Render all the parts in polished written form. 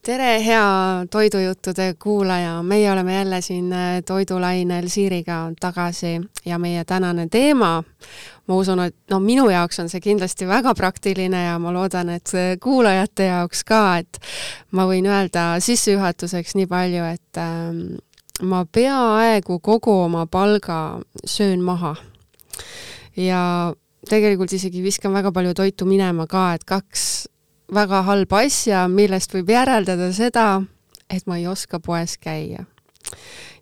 Tere, hea toidujuttude kuulaja! Meie oleme jälle siin toidulainel Siiriga tagasi ja meie tänane teema, ma usun, et minu jaoks on see kindlasti väga praktiline ja ma loodan, et kuulajate jaoks ka, et ma võin öelda sissejuhatuseks nii palju, et ma peaaegu kogu oma palga söön maha. Ja tegelikult isegi viskan väga palju toitu minema ka, et 2 väga halba asja, millest võib järeldada seda, et ma ei oska poes käia.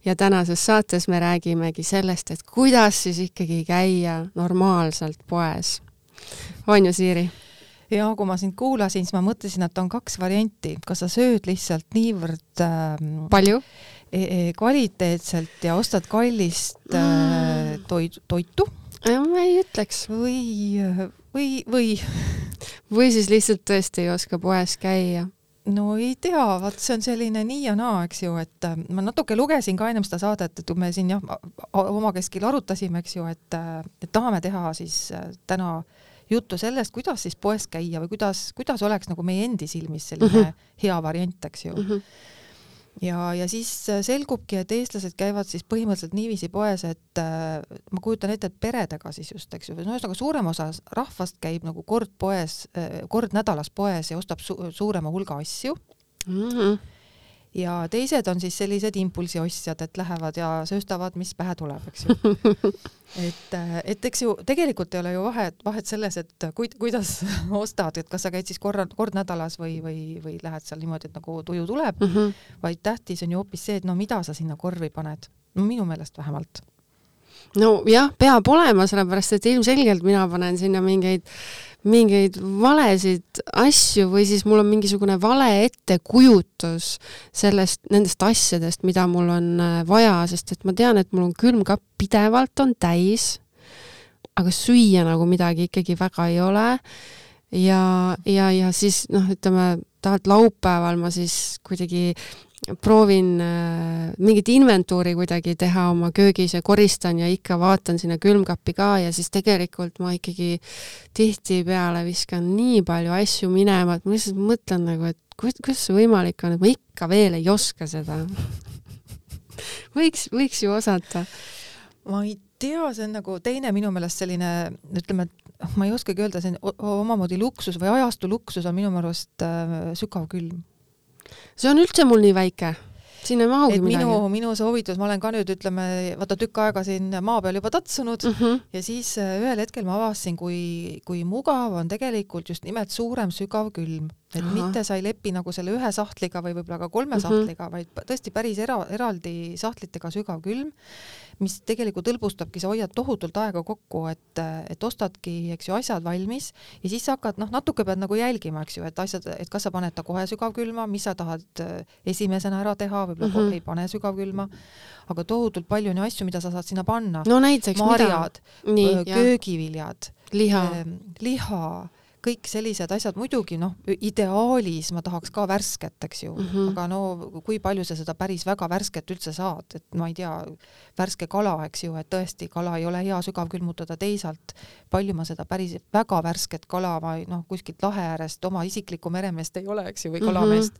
Ja tänases saates me räägimegi sellest, et kuidas siis ikkagi käia normaalselt poes. On ju, Siiri? Ja kui ma sind kuulasin, siis ma mõtlesin, et on 2 varianti. Kas sa sööd lihtsalt niivõrd palju? Kvaliteetselt ja ostad kallist toitu? Ma ei ütleks. Või siis lihtsalt tõesti ei oska poes käia? No ei tea, see on selline nii ja naa, eks ju, et ma natuke lugesin ka ennem seda saadet, et me siin oma keskil arutasime, eks ju, et tahame teha siis täna juttu sellest, kuidas siis poes käia või kuidas oleks nagu meie endi silmis selline hea variant, eks ju. Ja siis selgubki, et eestlased käivad siis põhimõtteliselt niiviisi poes, et ma kujutan ette, et peredega siis just, eks ju, ühesõnaga suurem osa rahvast käib nagu kord nädalas poes ja ostab suurema hulga asju. Ja teised on siis sellised impulsiostjad, et lähevad ja sööstavad, mis pähe tuleb, eks ju. Et eks ju, tegelikult ei ole ju vahet selles, et kuidas ostad, et kas sa käid siis kord nädalas või lähed seal niimoodi, et nagu tuju tuleb, vaid tähtis on ju hoopis see, et mida sa sinna korvi paned. No minu meelest vähemalt. No jah, peab olema, sellepärast, et ilmselgelt mina panen sinna mingeid valesid asju või siis mul on mingisugune vale ettekujutus nendest asjadest, mida mul on vaja, sest et ma tean, et mul on külmkapp pidevalt on täis, aga süüa nagu midagi ikkagi väga ei ole. Ja siis, ütleme, tahalt laupäeval ma siis kuidagi proovin mingit inventuuri kuidagi teha oma köögis ja koristan ja ikka vaatan sinna külmkappi ka ja siis tegelikult ma ikkagi tihtipeale viskan nii palju asju minema, et ma lihtsalt mõtlen nagu, et kuidas see võimalik on, et ma ikka veel ei oska seda. Võiks ju osata. Ma ei tea, see on nagu teine minu meelest selline, ütleme, ma ei oskagi öelda, see omamoodi luksus või ajastu luksus on minu meelest sügav külm. See on üldse mul nii väike. Siin ei mahugi midagi. Minu soovitus, ma olen ka nüüd, ütleme, vaata tükk aega siin maa peal juba tatsunud ja siis ühel hetkel ma avastasin, kui mugav on tegelikult just nimelt suurem sügav külm. Et mitte sa ei lepi nagu selle 1 sahtliga või võib-olla ka 3 sahtliga, vaid tõesti päris eraldi sahtlitega sügav külm, mis tegelikult hõlbustabki, sa hoiad tohutult aega kokku, et ostadki, eks ju, asjad valmis ja siis sa hakkad, natuke pead nagu jälgima, eks ju, et kas sa paned ta kohe sügavkülma, mis sa tahad esimesena ära teha, võib-olla ei pane sügavkülma, aga tohutult palju on asju, mida sa saad sinna panna. No näiteks marjad, köögiviljad, liha, kõik sellised asjad, muidugi, ideaalis ma tahaks ka värsket, eks ju, aga kui palju sa seda päris väga värsket üldse saad, et ma ei tea, värske kala, eks ju, et tõesti kala ei ole hea sügavkülmutada teisalt, palju ma seda päris väga värsket kala, kuskilt lahe äärest oma isiklikku meremeest ei ole, eks ju, või kalameest.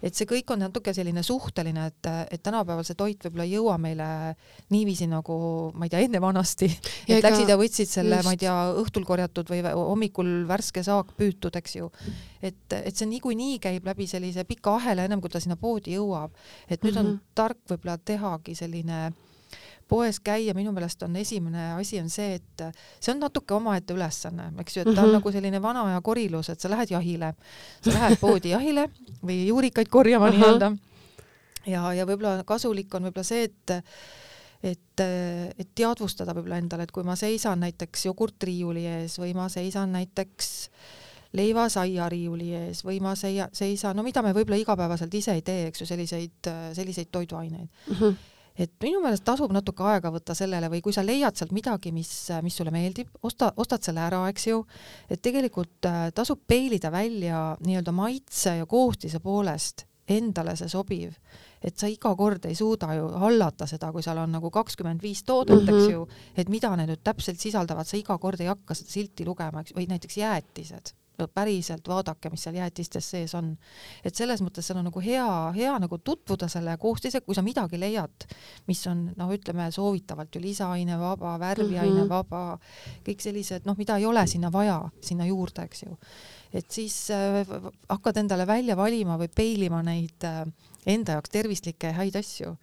Et see kõik on natuke selline suhteline, et tänapäeval see toit võib-olla ei jõua meile niiviisi nagu, ma ei tea, enne vanasti, et läksid ja võtsid selle, ma ei tea, õhtul korjatud või hommikul värske saak püütud, eks ju. Et see niikuinii käib läbi sellise pika ahela, ennem kui ta sinna poodi jõuab. Et nüüd on tark võib-olla tehagi selline poes käia, minu meelest on esimene asi on see, et see on natuke omaette ülesanne, eks ju, et ta on nagu selline vana aja korilus, et sa lähed jahile, sa lähed poodi jahile või juurikaid korjama nii-öelda ja võib-olla kasulik on võib-olla see, et teadvustada võib-olla endale, et kui ma seisan näiteks jogurtriiuli ees või ma seisan näiteks leivasaia riiuli ees või ma seisan, mida me võib-olla igapäevaselt ise ei tee, eks ju, selliseid toiduaineid. Et minu meelest tasub natuke aega võtta sellele või kui sa leiad sealt midagi, mis sulle meeldib, ostad selle ära, eks ju, et tegelikult tasub peilida välja nii-öelda maitse ja koostise poolest endale see sobiv, et sa iga kord ei suuda ju hallata seda, kui seal on nagu 25 toodet, eks ju, et mida need nüüd täpselt sisaldavad, sa iga kord ei hakka seda silti lugema, või näiteks jäätised. päriselt vaadake, mis seal jäätistes sees on. Et selles mõttes seal on nagu hea nagu tutvuda selle koostisega, kui sa midagi leiad, mis on, ütleme, soovitavalt ju lisaaine vaba, värviaine vaba, kõik sellised, mida ei ole sinna vaja, sinna juurde, eks ju. Et siis hakkad endale välja valima või peilima neid enda jaoks tervislikke häid asju.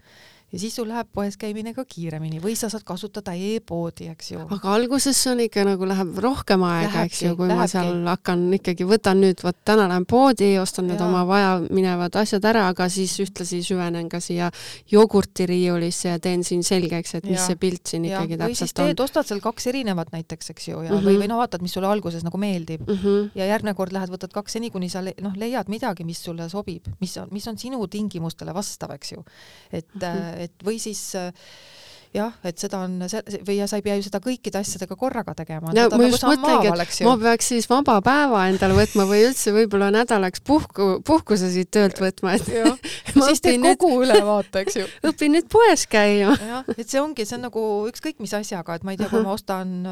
Ja siis sul läheb poes käimine ka kiiremini või sa saad kasutada e-poodi, eks ju. Aga alguses on ikka nagu läheb rohkem aega, eks ju, kui ma seal hakkan ikkagi, võtan nüüd, täna lähen poodi, ostan need oma vaja minevad asjad ära, aga siis ühtlasi süvenen ka siia jogurtiriiulisse ja teen siin selgeks, et mis see pilt siin ikkagi täpselt on. Või siis ostad seal 2 erinevat näiteks, eks ju, ja või vaatad, mis sulle alguses nagu meeldib. Ja järgmine kord lähed, võtad 2 seni, kuni sa leiad midagi, mis sulle sobib, mis on sinu tingimustele vastav, eks ju. Et või siis et seda on või sa ei pea ju seda kõikide asjadega korraga tegema. No, ma just mõtlengi, et ma peaks siis vaba päeva endale võtma või üldse võib-olla nädalaks puhkuse siit töölt võtma. siis teed kogu ülevaate, eks ju. Õpin nüüd poes käima. Et see on nagu ükskõik mis asjaga, et ma ei tea, kui ma ostan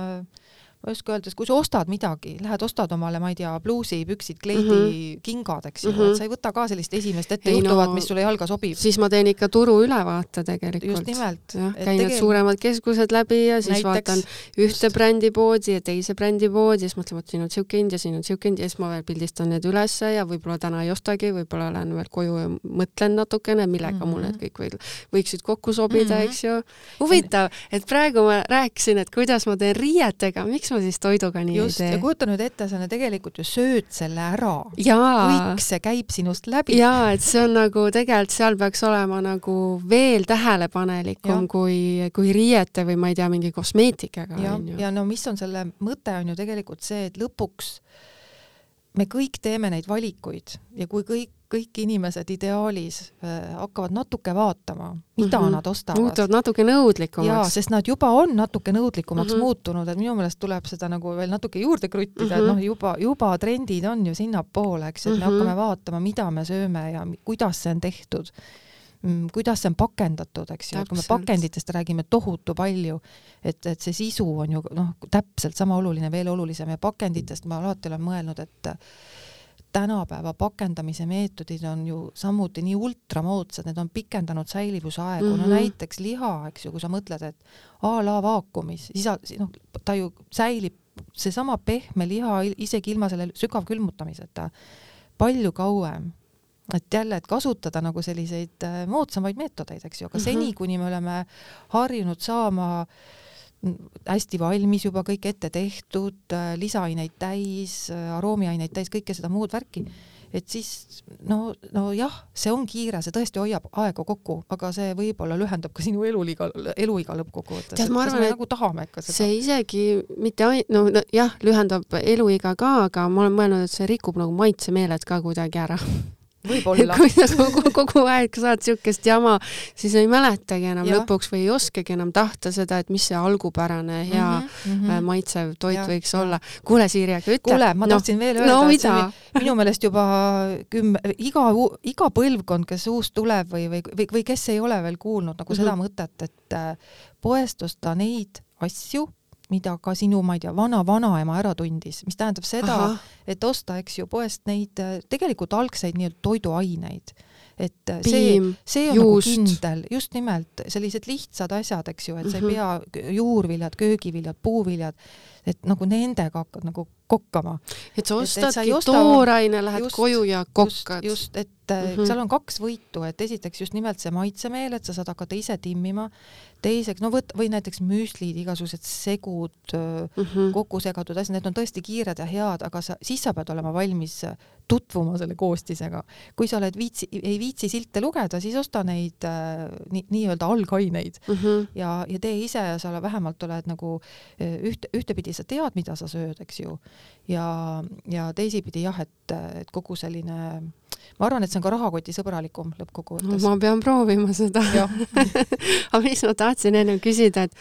ma just öeldes, kui sa ostad midagi, lähed ostad omale, ma ei tea, bluusi, püksid, kleidi, kingad, eks ju, et sa ei võta ka sellist esimest ette juhtuvat, mis sulle jalga sobib. Siis ma teen ikka turu ülevaate tegelikult. Just nimelt. Käin need suuremad keskused läbi ja siis vaatan ühte brändipoodi ja teise brändipoodi ja siis mõtlen, et siin on siuke hind ja siin on siuke hind ja siis ma veel pildistan need ülesse ja võib-olla täna ei ostagi, võib-olla lähen veel koju ja mõtlen natukene, millega mul need kõik võiksid kokku sobida, eks ju. Huvitav, et praegu ma rääkisin, et kuidas ma teen riietega, miks ma siis toiduga nii just, ei tee. Ja kujuta nüüd ette, sa tegelikult ju sööd selle ära. Kõik see käib sinust läbi. Jaa, et see on nagu tegelikult seal peaks olema nagu veel tähelepanelikum kui riiete või ma ei tea, mingi kosmeetikaga. Ja no mis on selle mõte on ju tegelikult see, et lõpuks me kõik teeme neid valikuid ja kui kõik inimesed ideaalis hakkavad natuke vaatama, mida nad ostavad. Muutuvad natuke nõudlikumaks. Jaa, sest nad juba on natuke nõudlikumaks muutunud, et minu meelest tuleb seda nagu veel natuke juurde kruttida, et juba trendid on ju sinnapoole, eks, et me hakkame vaatama, mida me sööme ja kuidas see on tehtud, kuidas see on pakendatud, eks ju, kui me pakenditest räägime tohutu palju, et see sisu on ju täpselt sama oluline, veel olulisem ja pakenditest ma alati olen mõelnud, et tänapäeva pakendamise meetodid on ju samuti nii ultramoodsad, need on pikendanud säilivusaegu, no näiteks liha, eks ju, kui sa mõtled, et a la vaakumis, siis ta ju säilib, seesama pehme liha isegi ilma selle sügavkülmutamiseta palju kauem. Et jälle, et kasutada nagu selliseid moodsamaid meetodeid, eks ju, aga seni, kuni me oleme harjunud saama hästi valmis juba kõik ette tehtud, lisaaineid täis, aroomiaineid täis, kõike seda muud värki, et siis no jah, see on kiire, see tõesti hoiab aega kokku, aga see võib-olla lühendab ka sinu eluiga lõppkokkuvõttes. Ma arvan, et nagu tahame ikka seda. See isegi mitte jah, lühendab eluiga ka, aga ma olen mõelnud, et see rikub nagu maitsemeeled ka kuidagi ära. Võib-olla. Kui sa kogu aeg saad siukest jama, siis ei mäletagi enam lõpuks või ei oskagi enam tahta seda, et mis see algupärane hea maitsev toit võiks olla. Kuule, Siiri, aga ütle. Kuule, ma tahtsin veel öelda, et see oli minu meelest juba iga põlvkond, kes uus tuleb või kes ei ole veel kuulnud nagu seda mõtet, et poest osta neid asju, mida ka sinu, ma ei tea, vanaema ära tundis, mis tähendab seda, et osta, eks ju, poest neid tegelikult algseid nii-öelda toiduaineid. Et see on nagu kindel, just nimelt sellised lihtsad asjad, eks ju, et sa ei pea juurviljad, köögiviljad, puuviljad, et nagu nendega hakkad nagu kokkama. Et sa ostadki tooraine, lähed koju ja kokkad. Just, et seal on 2 võitu, et esiteks just nimelt see maitsemeel, et sa saad hakata ise timmima, teiseks, või näiteks müslid, igasugused segud, kokku segatud asjad, need on tõesti kiired ja head, aga siis sa pead olema valmis tutvuma selle koostisega. Kui sa oled ei viitsi silte lugeda, siis osta neid nii-öelda algaineid ja tee ise ja sa vähemalt oled nagu ühtepidi sa tead, mida sa sööd, eks ju. Ja teisipidi jah, et kogu selline, ma arvan, et see on ka rahakoti sõbralikum lõppkokkuvõttes. Ma pean proovima seda. Aga mis ma tahtsin enne küsida, et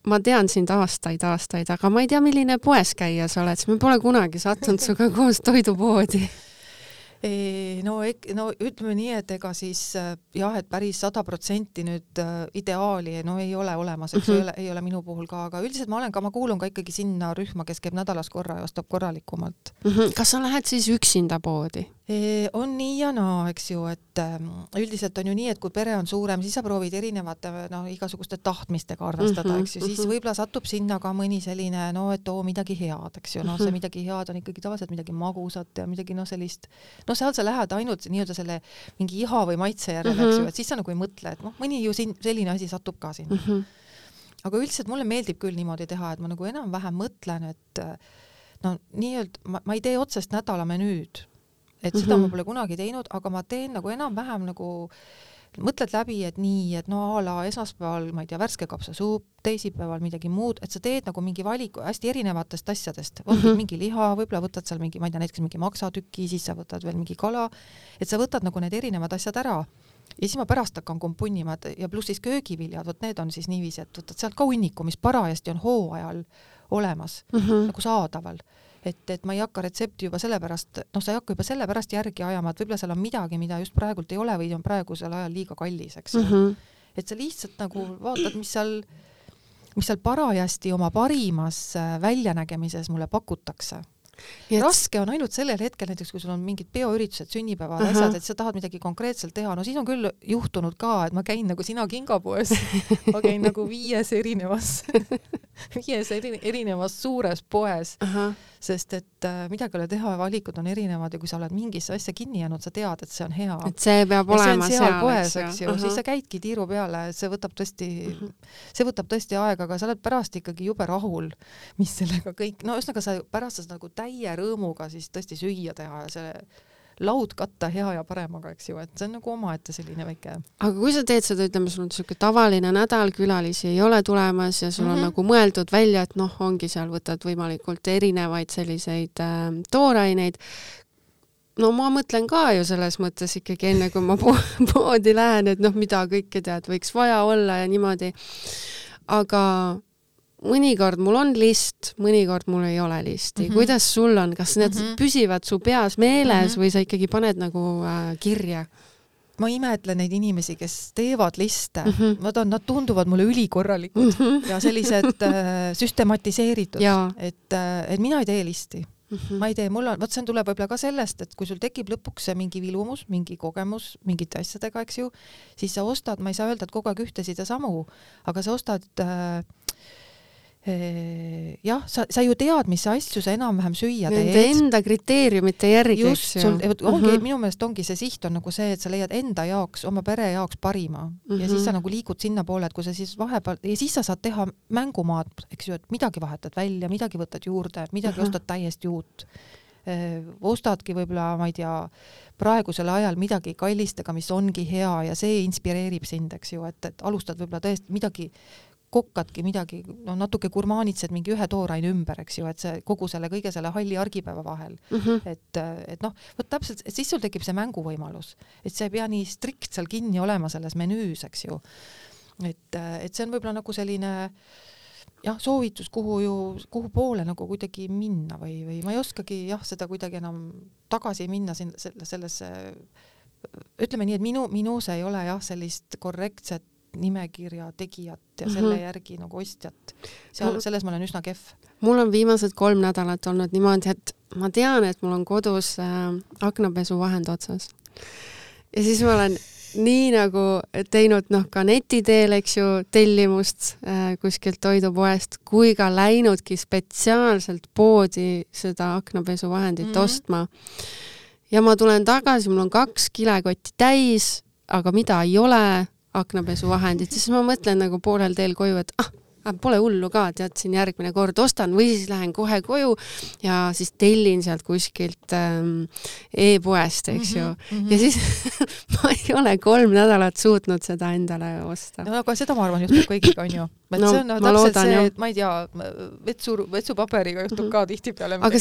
ma tean sind aastaid, aga ma ei tea, milline poes käia sa oled, sest me pole kunagi sattunud suga koos toidupoodi. No ütleme nii, et ega siis jah, et päris 100% nüüd ideaali ei ole olemas, eks ei ole minu puhul ka, aga üldiselt ma kuulun ka ikkagi sinna rühma, kes käib nädalas korra ja ostab korralikumalt. Kas sa lähed siis üksinda poodi? On nii ja naa, eks ju, et üldiselt on ju nii, et kui pere on suurem, siis sa proovid erinevate igasuguste tahtmistega arvestada, eks ju, siis võib-olla satub sinna ka mõni selline, et midagi head, eks ju, see midagi head on ikkagi tavaliselt midagi magusat ja midagi sellist, seal sa lähed ainult nii-öelda selle mingi iha või maitse järele, eks ju, et siis sa nagu ei mõtle, et mõni ju selline asi satub ka sinna. Aga üldiselt mulle meeldib küll niimoodi teha, et ma nagu enam-vähem mõtlen, et nii-öelda ma ei tee otsest nädala menüüd, et seda ma pole kunagi teinud, aga ma teen nagu enam-vähem nagu mõtled läbi, et nii, et a la esmaspäeval, ma ei tea, värske kapsasuup, teisipäeval midagi muud, et sa teed nagu mingi valiku hästi erinevatest asjadest. Võtad mingi liha, võib-olla võtad seal mingi, ma ei tea, näiteks mingi maksatüki, siis sa võtad veel mingi kala, et sa võtad nagu need erinevad asjad ära. Ja siis ma pärast hakkan kompunnima ja pluss siis köögiviljad, need on siis niiviisi, et võtad sealt ka hunniku, mis parajasti on hooajal olemas, nagu saadaval. Et ma ei hakka retsepti juba sellepärast, sa ei hakka juba sellepärast järgi ajama, et võib-olla seal on midagi, mida just praegult ei ole või on praegusel ajal liiga kallis, eks. Et sa lihtsalt nagu vaatad, mis seal parajasti oma parimas väljanägemises mulle pakutakse. Raske on ainult sellel hetkel, näiteks kui sul on mingid peoüritused, sünnipäevad, asjad, et sa tahad midagi konkreetselt teha, siis on küll juhtunud ka, et ma käin nagu sina kingapoes, ma käin nagu 5 erinevas suures poes, sest et midagi ole teha, valikud on erinevad ja kui sa oled mingisse asja kinni jäänud, sa tead, et see on hea. Et see peab olema seal poes, eks ju, siis sa käidki tiiru peale, see võtab tõesti aega, aga sa oled pärast ikkagi jube rahul, mis sellega kõik, ühesõnaga sa pärast sa nagu täie rõõmuga siis tõesti süüa teha ja see laud katta hea ja paremaga, eks ju, et see on nagu omaette selline väike. Aga kui sa teed seda, ütleme, sul on selline tavaline nädal, külalisi ei ole tulemas ja sul on nagu mõeldud välja, et ongi seal võtad võimalikult erinevaid selliseid tooraineid. Ma mõtlen ka ju selles mõttes ikkagi enne, kui ma poodi lähen, et mida kõike tead, võiks vaja olla ja niimoodi. Aga mõnikord mul on list, mõnikord mul ei ole listi. Kuidas sul on? Kas need püsivad su peas meeles või sa ikkagi paned nagu kirja? Ma imetlen neid inimesi, kes teevad liste. Nad tunduvad mulle ülikorralikud ja sellised süstematiseeritud. Et mina ei tee listi. Ma ei tee, see tuleb võib-olla ka sellest, et kui sul tekib lõpuks mingi vilumus, mingi kogemus, mingite asjadega, eks ju, siis sa ostad, ma ei saa öelda, et kogu aeg ühtesid ja samu, aga sa ostad jah, sa ju tead, mis asju sa enam-vähem süüa teed. Nende enda kriteeriumite järgi. Just, minu meelest ongi see siht on nagu see, et sa leiad enda jaoks, oma pere jaoks parima ja siis sa nagu liigud sinna poole, et kui sa siis vahepeal, ja siis sa saad teha mängumaad, eks ju, et midagi vahetad välja, midagi võtad juurde, midagi ostad täiesti uut. Ostadki võib-olla, ma ei tea, praegusel ajal midagi kallistega, mis ongi hea ja see inspireerib sind, eks ju, et alustad võib-olla tõesti midagi kokkadki midagi, natuke gurmaanitsed mingi ühe tooraine ümber, eks ju, et see kogu selle kõige selle halli argipäeva vahel. Et võt täpselt, et siis sul tekib see mänguvõimalus, et see ei pea nii strikt seal kinni olema selles menüüs, eks ju. Et see on võib-olla nagu selline soovitus, kuhu poole nagu kuidagi minna või ma ei oskagi seda kuidagi enam tagasi minna sellesse, ütleme nii, et minus ei ole sellist korrektset nimekirja tegijat ja selle järgi nagu ostjat. Selles ma olen üsna kehv. Mul on viimased 3 nädalat olnud niimoodi, et ma tean, et mul on kodus aknapesuvahend otsas. Ja siis ma olen nii nagu teinud ka netiteel, eks ju, tellimust kuskilt toidupoest, kui ka läinudki spetsiaalselt poodi seda aknapesuvahendit ostma. Ja ma tulen tagasi, mul on 2 kilekotti täis, aga mida ei ole aknapesuvahendit, siis ma mõtlen nagu poolel teel koju, et pole hullu ka, tead, siin järgmine kord ostan või siis lähen kohe koju ja siis tellin sealt kuskilt e-poest, eks ju. Ja siis ma ei ole 3 nädalat suutnud seda endale osta. Aga seda ma arvan juhtub kõigiga, on ju. See on täpselt see, et ma ei tea, vetsupaberiga juhtub ka tihtipeale. Aga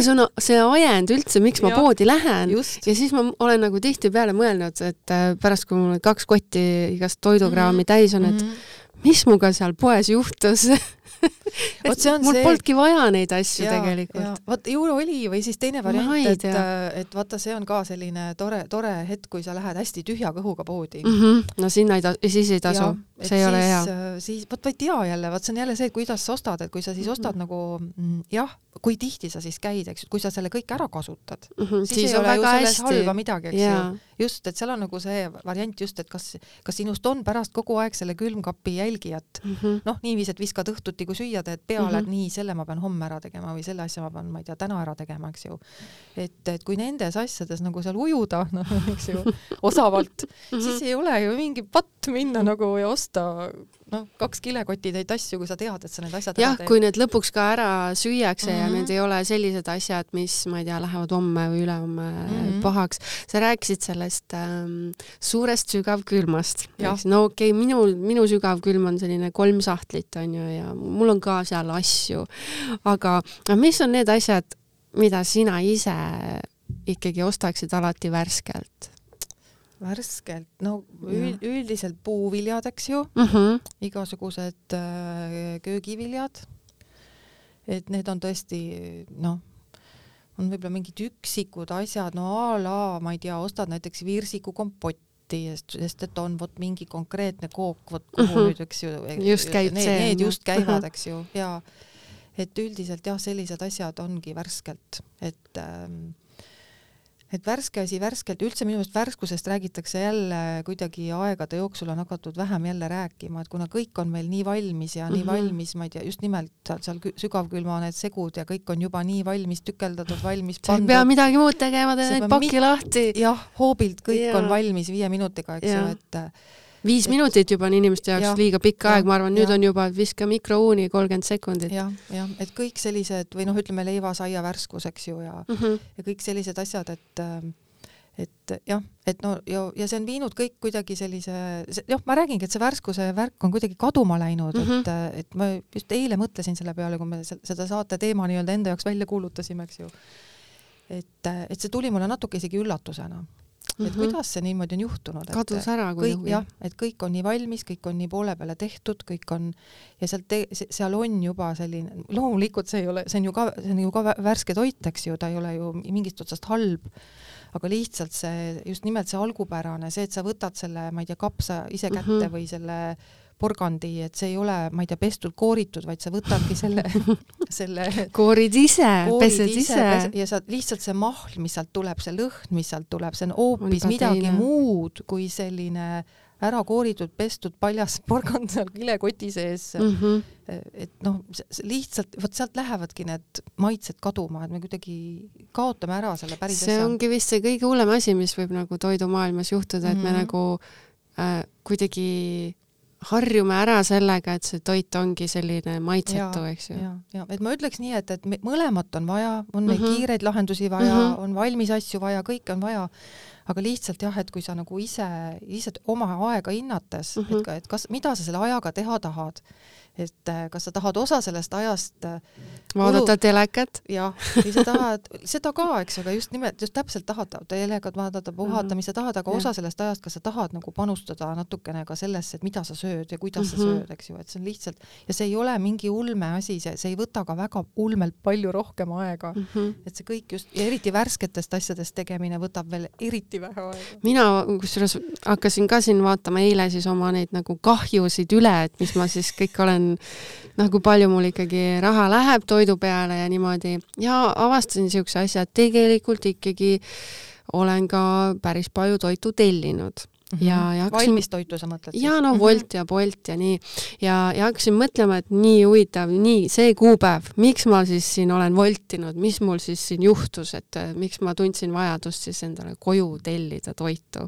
see ajend üldse, miks ma poodi lähen. Ja siis ma olen nagu tihtipeale mõelnud, et pärast, kui mul 2 kotti igast toidukraami täis on, et mis muga seal poes juhtus, mul polnudki vaja neid asju tegelikult. Vaat ju oli või siis teine variant, et vaata, see on ka selline tore hetk, kui sa lähed hästi tühja kõhuga poodi. No siis ei tasu, see ei ole hea. Siis, vaat ei tea jälle, vaat see on jälle see, et kuidas sa ostad, et kui sa siis ostad nagu, kui tihti sa siis käid, eks, kui sa selle kõik ära kasutad, siis ei ole ju selles halba midagi, eks ju. Just, et seal on nagu see variant just, et kas sinust on pärast kogu aeg selle külmkapi jälgijat. Niiviis, et viskad õhtuti, kui süüa teed peale, et nii, selle ma pean homme ära tegema või selle asja ma pean, ma ei tea, täna ära tegema, eks ju. Et kui nendes asjades nagu seal ujuda, eks ju, osavalt, siis ei ole ju mingi patt minna nagu ja osta 2 kilekotitäit asju, kui sa tead, et sa need asjad ära teed. Kui need lõpuks ka ära süüakse ja need ei ole sellised asjad, mis, ma ei tea, lähevad homme või ülehomme pahaks. Sa rääkisid sellest suurest sügavkülmast. No okei, minu sügavkülm on selline 3 sahtlit, on ju, ja mul on ka seal asju. Aga mis on need asjad, mida sina ise ikkagi ostaksid alati värskelt? Värskelt, üldiselt puuviljad, eks ju, igasugused köögiviljad, et need on tõesti, on võib-olla mingid üksikud asjad, ma ei tea, ostad näiteks viirsiku kompotti, sest et on mingi konkreetne kook, kuhu nüüd, eks ju, just käib need just käivad, eks ju, ja et üldiselt sellised asjad ongi värskelt, et värske asi värskelt, üldse minu meelest värskusest räägitakse jälle kuidagi aegade jooksul on hakatud vähem jälle rääkima, et kuna kõik on meil nii valmis ja nii valmis, ma ei tea, just nimelt seal sügavkülma need segud ja kõik on juba nii valmis tükeldatud, valmis pandud. Sa ei pea midagi muud tegema, teed paki lahti. Jah, hoobilt kõik on valmis 5 minutiga, eks ju, et 5 minutit juba on inimeste jaoks liiga pikk aeg, ma arvan, nüüd on juba viska mikrouuni 30 sekundit. Ja, et kõik sellised, või ütleme leivasaia värskus, eks ju, ja kõik sellised asjad, et see on viinud kõik kuidagi sellise, ma räägingi, et see värskuse värk on kuidagi kaduma läinud, et ma just eile mõtlesin selle peale, kui me seda saate teema nii-öelda enda jaoks välja kuulutasime, eks ju. Et see tuli mulle natuke isegi üllatusena. Et kuidas see niimoodi on juhtunud? Kadus ära kui kõik, et kõik on nii valmis, kõik on nii poole peale tehtud, kõik on, ja seal on juba selline, loomulikult see on ju ka värske toit, eks ju, ta ei ole ju mingist otsast halb, aga lihtsalt just nimelt see algupärane, see, et sa võtad selle, ma ei tea, kapsa ise kätte või selle porgandi, et see ei ole, ma ei tea, pestud, kooritud, vaid sa võtadki selle koorid ise, pesed ise. Ja sa lihtsalt see mahl, mis sealt tuleb, see lõhn, mis sealt tuleb, see on hoopis midagi muud kui selline ära kooritud, pestud, paljas porgand seal kilekoti sees. Et lihtsalt, sealt lähevadki need maitsed kaduma, et me kuidagi kaotame ära selle päris asja. See ongi vist see kõige hullem asi, mis võib nagu toidumaailmas juhtuda, et me nagu kuidagi harjume ära sellega, et see toit ongi selline maitsetu, eks ju. Ja, et ma ütleks nii, et mõlemat on vaja, on meil kiireid lahendusi vaja, on valmis asju vaja, kõike on vaja, aga lihtsalt et kui sa nagu ise oma aega hinnates, et mida sa selle ajaga teha tahad, et kas sa tahad osa sellest ajast vaadata telekat? Jah, või sa tahad seda ka, eks, aga just täpselt tahad telekat vaadata, puhata, mis sa tahad, aga osa sellest ajast, kas sa tahad nagu panustada natukene ka sellesse, et mida sa sööd ja kuidas sa sööd, eks ju, et see on lihtsalt, ja see ei ole mingi ulme asi, see ei võta ka väga ulmelt palju rohkem aega, et see kõik just, ja eriti värsketest asjadest tegemine võtab veel eriti vähe aega. Mina kusjuures hakkasin ka siin vaatama eile siis oma neid nagu kahjusid üle, et mis ma siis kõik olen kui palju mul ikkagi raha läheb toidu peale ja niimoodi. Ja avastasin niisuguse asja, et tegelikult ikkagi olen ka päris palju toitu tellinud. Valmis toitu sa mõtled? Ja Wolt ja Bolt ja nii. Ja hakkasin mõtlema, et nii huvitav, nii see kuupäev, miks ma siis siin olen voltinud, mis mul siis siin juhtus, et miks ma tundsin vajadust siis endale koju tellida toitu.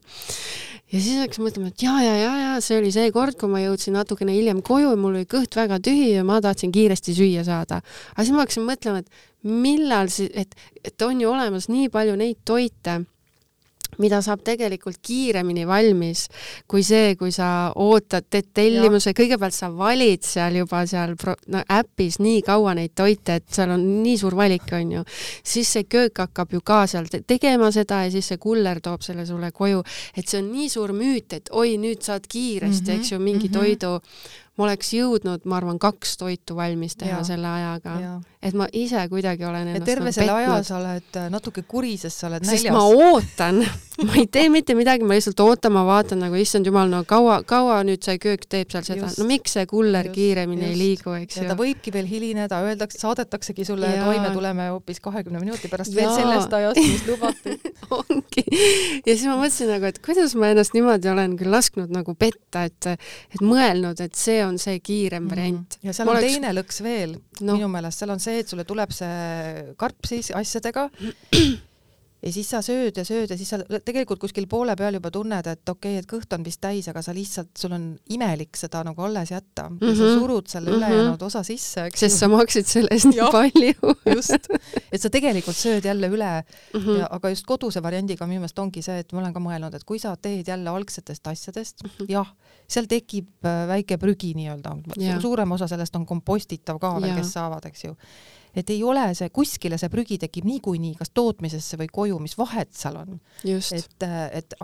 Ja siis hakkasin mõtlema, et ja, see oli see kord, kui ma jõudsin natukene hiljem koju ja mul oli kõht väga tühi ja ma tahtsin kiiresti süüa saada. Aga siis ma hakkasin mõtlema, et millal siis, et on ju olemas nii palju neid toite, mida saab tegelikult kiiremini valmis kui see, kui sa ootad, teed tellimuse, kõigepealt sa valid seal juba äpis nii kaua neid toite, et seal on nii suur valik, on ju. Siis see köök hakkab ju ka seal tegema seda ja siis see kuller toob selle sulle koju, et see on nii suur müüt, et oi, nüüd saad kiiresti, eks ju, mingi toidu ma oleks jõudnud, ma arvan, 2 toitu valmis teha selle ajaga. Et ma ise kuidagi olen ennast ja terve selle aja sa oled natuke kuri, sest sa oled näljas. Sest ma ootan, ma ei tee mitte midagi, ma lihtsalt ootan, ma vaatan nagu issand jumal, no kaua nüüd see köök teeb seal seda, no miks see kuller kiiremini ei liigu, eks ju. Ja ta võibki veel hilineda, saadetaksegi sulle toime, tuleme hoopis 20 minuti pärast veel sellest ajast, mis lubati. Ongi. Ja siis ma mõtlesin nagu, et kuidas ma ennast niimoodi olen küll lasknud nagu petta, et mõelnud, et see on see kiirem variant. Ja seal on teine lõks veel, minu meelest, seal on see, et sulle tuleb see karp siis asjadega ja siis sa sööd ja siis sa tegelikult kuskil poole peal juba tunned, et okei, et kõht on vist täis, aga sa lihtsalt, sul on imelik seda nagu alles jätta ja sa surud selle ülejäänud osa sisse. Sest sa maksid sellest nii palju. Just, et sa tegelikult sööd jälle üle, aga just koduse variandiga minu meelest ongi see, et ma olen ka mõelnud, et kui sa teed jälle algsetest asjadest, jah, seal tekib väike prügi nii-öelda. Suurem osa sellest on kompostitav ka veel, kes saavad, eks ju. Et ei ole see, kuskile see prügi tekib niikuinii, kas tootmisesse või koju, mis vahet seal on.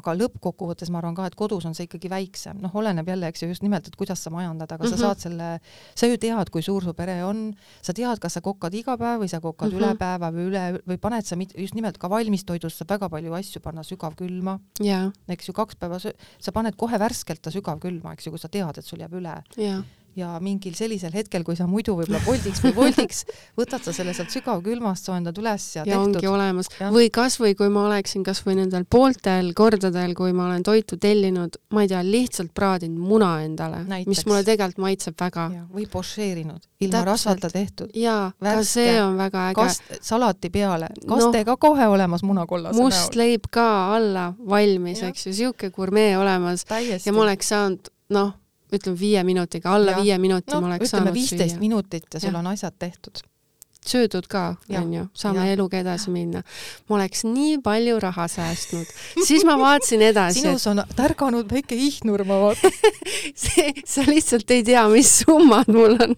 Aga lõppkokkuvõttes ma arvan ka, et kodus on see ikkagi väiksem. Oleneb jälle, eks ju, just nimelt, et kuidas sa majandad, aga sa saad sa ju tead, kui suur su pere on, sa tead, kas sa kokkad iga päev või sa kokkad üle päeva või paned sa just nimelt ka valmistoidust saab väga palju asju panna sügavkülma. Eks ju, 2 päeva sa paned kohe värskelt ta sügavkülma, eks ju, kui sa tead, et sul jääb üle. Ja mingil sellisel hetkel, kui sa muidu võib-olla voldiks, võtad sa selle sealt sügavkülmast, soendad üles ja tehtud. Ja ongi olemas. Või kasvõi, kui ma oleksin kasvõi nendel pooltel kordadel, kui ma olen toitu tellinud, ma ei tea, lihtsalt praadinud muna endale, mis mulle tegelikult maitseb väga. Või pošeerinud, ilma rasvata tehtud. Jaa, ka see on väga äge. Salati peale, kastega kohe olemas munakollase näol. Must leib ka alla valmis, eks ju, siuke gurmee olemas. Ja ma oleks saanud, ütleme 5 minutiga, alla 5 minuti ma oleks saanud süüa. 15 minutit ja sul on asjad tehtud. Söödud ka, on ju, saame eluga edasi minna. Ma oleks nii palju raha säästnud. Siis ma vaatasin edasi. Sinus on tärganud väike ihnur, ma vaatan. Sa lihtsalt ei tea, mis summad mul on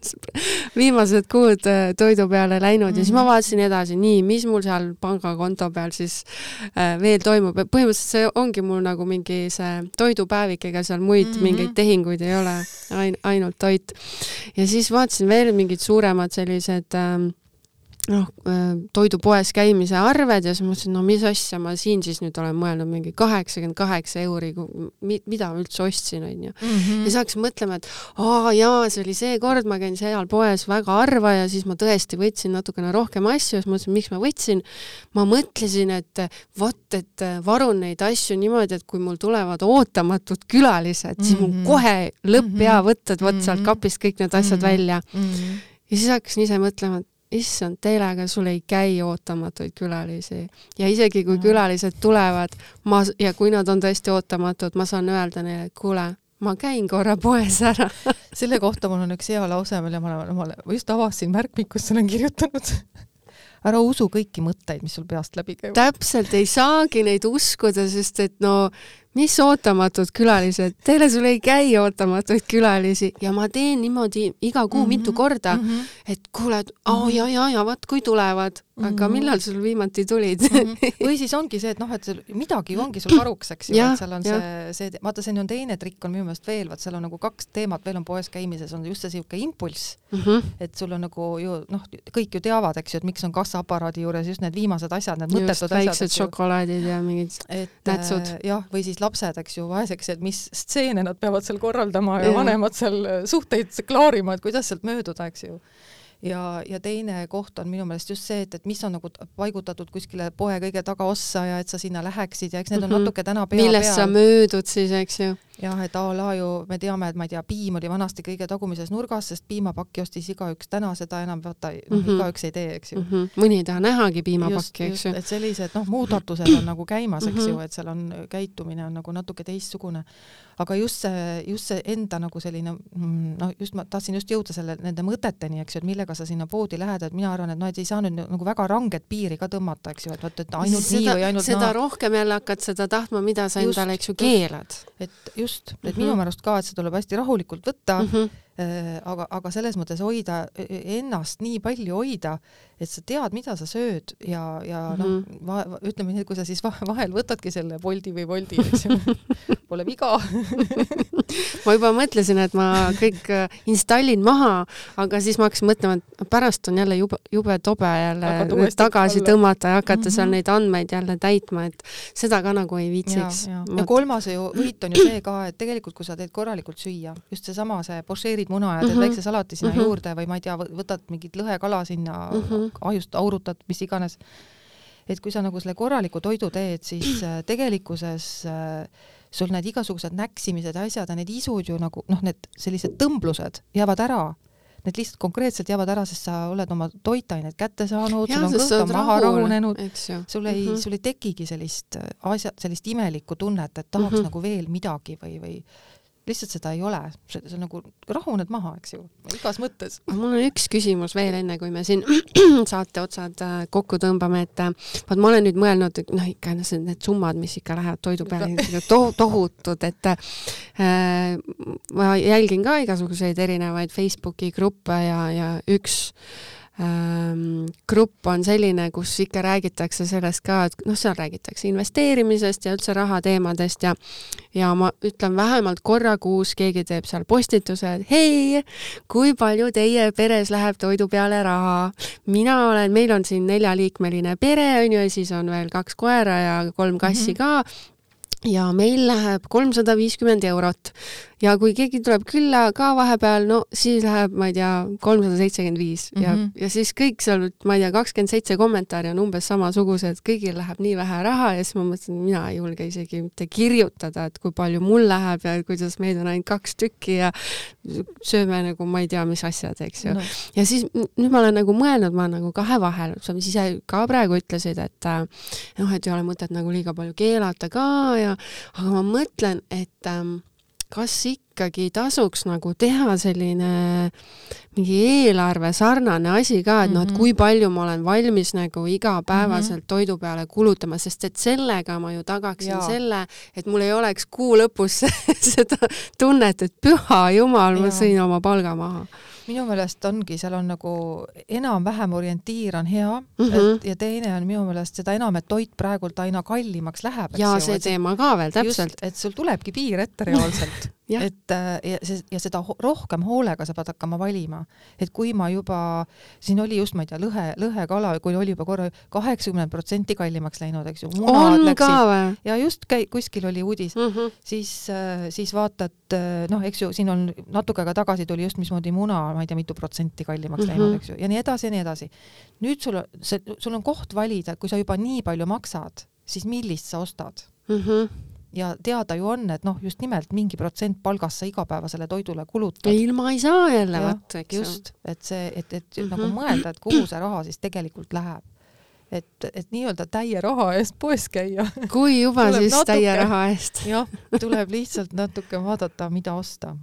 viimased kuud toidu peale läinud ja siis ma vaatasin edasi, nii, mis mul seal pangakonto peal siis veel toimub. Põhimõtteliselt see ongi mul nagu mingi see toidupäevik, ega seal muid mingeid tehinguid ei ole, ainult toit. Ja siis vaatasin veel mingid suuremad sellised toidupoes käimise arved ja siis mõtlesin, mis asja ma siin siis nüüd olen mõelnud, mingi 88 euri, mida ma üldse ostsin, on ju. Ja siis hakkasin mõtlema, et see oli see kord, ma käin seal poes väga harva ja siis ma tõesti võtsin natukene rohkem asju ja siis mõtlesin, miks ma võtsin. Ma mõtlesin, et varun neid asju niimoodi, et kui mul tulevad ootamatud külalised, siis mul kohe lõpp hea võtta, et võt sealt kapist kõik need asjad välja. Ja siis hakkasin ise mõtlema, et issand, teelega sul ei käi ootamatuid külalisi. Ja isegi kui külalised tulevad ja kui nad on tõesti ootamatud, ma saan öelda neile, et kuule, ma käin korra poes ära. Selle kohta mul on üks hea lause, mille ma just avasin märkmikus, olen kirjutanud. Ära usu kõiki mõtteid, mis sul peast läbi käivad. Täpselt, ei saagi neid uskuda, sest et mis ootamatud külalised, teile sul ei käi ootamatuid külalisi ja ma teen niimoodi iga kuu mitu korda, et kuule, vaat kui tulevad, aga millal sul viimati tulid? Või siis ongi see, et et midagi ongi sul varuks, eks ju, et seal on see, vaata, see on teine trikk on minu meelest veel, vaat seal on nagu 2 teemat, veel on poes käimises, on just see siuke impulss, et sul on nagu ju, kõik ju teavad, eks ju, et miks on kassaaparaadi juures just need viimased asjad, need mõttetud asjad. Väiksed šokolaadid ja mingid nätsud. Jah, või siis lapsed, eks ju, vaeseks, et mis stseene nad peavad seal korraldama ja vanemad seal suhteid klaarima, et kuidas sealt mööduda, eks ju. Ja teine koht on minu meelest just see, et mis on nagu paigutatud kuskile poe kõige tagaossa ja et sa sinna läheksid ja eks need on natuke täna millest sa möödud siis, eks ju. Jah, et me teame, et ma ei tea, piim oli vanasti kõige tagumises nurgas, sest piimapakki ostis igaüks täna, seda enam igaüks ei tee, eks ju. Mõni ei taha nähagi piimapakki, eks ju. Et sellised muudatused on nagu käimas, eks ju, et seal on käitumine on nagu natuke teistsugune. Aga just see enda nagu selline, ma tahtsin just jõuda nende mõteteni, eks ju, et millega sa sinna poodi lähed, et mina arvan, et ei saa nüüd nagu väga ranget piiri ka tõmmata, eks ju, et ainult nii või ainult seda rohkem jälle hakkad seda tahtma, mida sa endale, eks ju, keelad. Et minu määrast ka, et see tuleb hästi rahulikult võtta, aga selles mõttes hoida ennast nii palju hoida, et sa tead, mida sa sööd ja ütleme nii, kui sa siis vahel võtadki selle Bolti või Wolti, eks ju, pole viga. Ma juba mõtlesin, et ma kõik installin maha, aga siis ma hakkasin mõtlema, et pärast on jälle jube tobe jälle tagasi tõmmata ja hakata seal neid andmeid jälle täitma, et seda ka nagu ei viitsiks. Ja kolmas võit on ju see ka, et tegelikult kui sa teed korralikult süüa, just seesama see pošeerid muna ja teed väikse salati sinna juurde või ma ei tea, võtad mingit lõhekala sinna, ahjust aurutad, mis iganes. Et kui sa nagu selle korraliku toidu teed, siis tegelikkuses sul need igasugused näksimised ja asjad ja need isud ju nagu, need sellised tõmblused jäävad ära. Need lihtsalt konkreetselt jäävad ära, sest sa oled oma toitained kätte saanud, sul on kõht maha rahunenud, sul ei tekigi sellist imelikku tunnet, et tahaks nagu veel midagi või lihtsalt seda ei ole. See on nagu rahuned maha, eks ju, igas mõttes. Mul on üks küsimus veel enne, kui me siin saate otsad kokku tõmbame, et ma olen nüüd mõelnud, ikka need summad, mis ikka lähevad toidu peale, tohutud, et ma jälgin ka igasuguseid erinevaid Facebooki gruppe ja üks grupp on selline, kus ikka räägitakse sellest ka, et seal räägitakse investeerimisest ja üldse rahateemadest ja ma ütlen vähemalt korra kuus keegi teeb seal postituse, et hei, kui palju teie peres läheb toidu peale raha? Meil on siin 4-liikmeline pere, ja siis on veel 2 koera ja 3 kassi ka. Ja meil läheb 350 eurot ja kui keegi tuleb külla ka vahepeal, siis läheb, ma ei tea, 375 ja siis kõik seal, ma ei tea, 27 kommentaari on umbes samasugused, kõigil läheb nii vähe raha ja siis ma mõtlen, mina ei julge isegi mitte kirjutada, et kui palju mul läheb ja kuidas meid on ainult 2 tükki ja sööme nagu, ma ei tea, mis asjad, eks ju. Ja siis nüüd ma olen nagu mõelnud, ma nagu kahe vahel, sa mis ise ka praegu ütlesid, et et ei ole mõtet nagu liiga palju keelata ka aga ma mõtlen, et kas ikkagi tasuks nagu teha selline mingi eelarve sarnane asi ka, et et kui palju ma olen valmis nagu igapäevaselt toidu peale kulutama, sest et sellega ma ju tagaksin selle, et mul ei oleks kuu lõpus seda tunnet, et püha jumal, ma sõin oma palga maha. Minu meelest ongi, seal on nagu enam-vähem orientiir on hea ja teine on minu meelest seda enam, et toit praegult aina kallimaks läheb. Ja see teema ka veel, täpselt. Just, et sul tulebki piir ette reaalselt. ja seda rohkem hoolega sa pead hakkama valima. Et kui ma juba, siin oli just, ma ei tea, lõhekala, kui oli juba korra 80% kallimaks läinud, eks ju. On ka või? Ja just kuskil oli uudis. Siis vaatad, eks ju, siin on natuke aega tagasi tuli just mismoodi muna, ma ei tea, mitu protsenti kallimaks läinud, eks ju. Ja nii edasi ja nii edasi. Nüüd sul on koht valida, kui sa juba nii palju maksad, siis millist sa ostad. Ja teada ju on, et just nimelt mingi protsent palgast sa igapäevasele toidule kulutad. Ilma ei saa jälle võtta, eks just, et nagu mõelda, et kuhu see raha siis tegelikult läheb. Et nii-öelda täie raha eest poes käia. Kui juba siis täie raha eest. Jah, tuleb lihtsalt natuke vaadata, mida osta.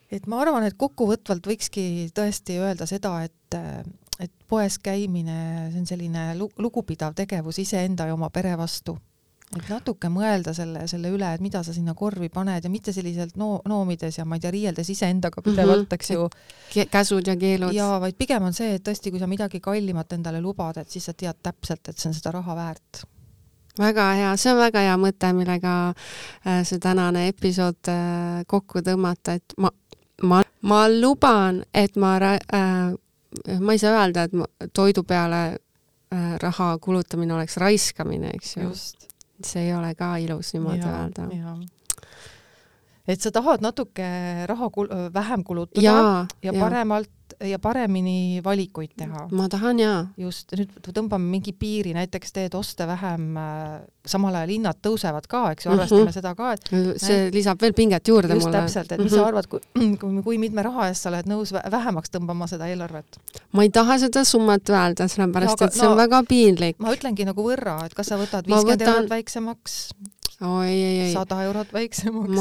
Et ma arvan, et kokkuvõtvalt võikski tõesti öelda seda, et poes käimine, see on selline lugupidav tegevus iseenda ja oma pere vastu. Et natuke mõelda selle üle, et mida sa sinna korvi paned ja mitte selliselt noomides ja ma ei tea, riieldes iseendaga pidevalt, eks ju. Käsud ja keelud. Ja vaid pigem on see, et tõesti, kui sa midagi kallimat endale lubad, et siis sa tead täpselt, et see on seda raha väärt. Väga hea, see on väga hea mõte, millega see tänane episood kokku tõmmata, et ma luban, et ma ei saa öelda, et toidu peale raha kulutamine oleks raiskamine, eks ju. Just. See ei ole ka ilus niimoodi öelda. Et sa tahad natuke raha vähem kulutada ja paremalt ja paremini valikuid teha. Ma tahan Just, nüüd tõmbame mingi piiri, näiteks teed oste vähem, samal ajal hinnad tõusevad ka, eks ju, arvestame seda ka. Et see lisab veel pinget juurde just mulle. Just täpselt, et mis sa arvad, kui mitme raha eest sa oled nõus vähemaks tõmbama seda eelarvet? Ma ei taha seda summat öelda, sellepärast, et see on väga piinlik. Ma ütlengi nagu võrra, et kas sa võtad 50 eurot väiksemaks? Ei. 100 eurot väiksemaks.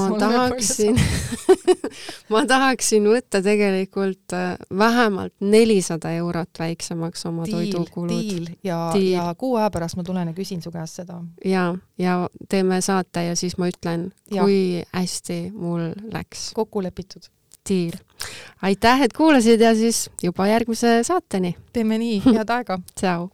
Ma tahaksin võtta tegelikult vähemalt 400 eurot väiksemaks oma toidukulud. Diil. Ja kuu aja pärast ma tulen ja küsin su käest seda. Ja teeme saate ja siis ma ütlen, kui hästi mul läks. Kokku lepitud. Diil. aitäh, et kuulasid ja siis juba järgmise saateni. Teeme nii, head aega. Tšau.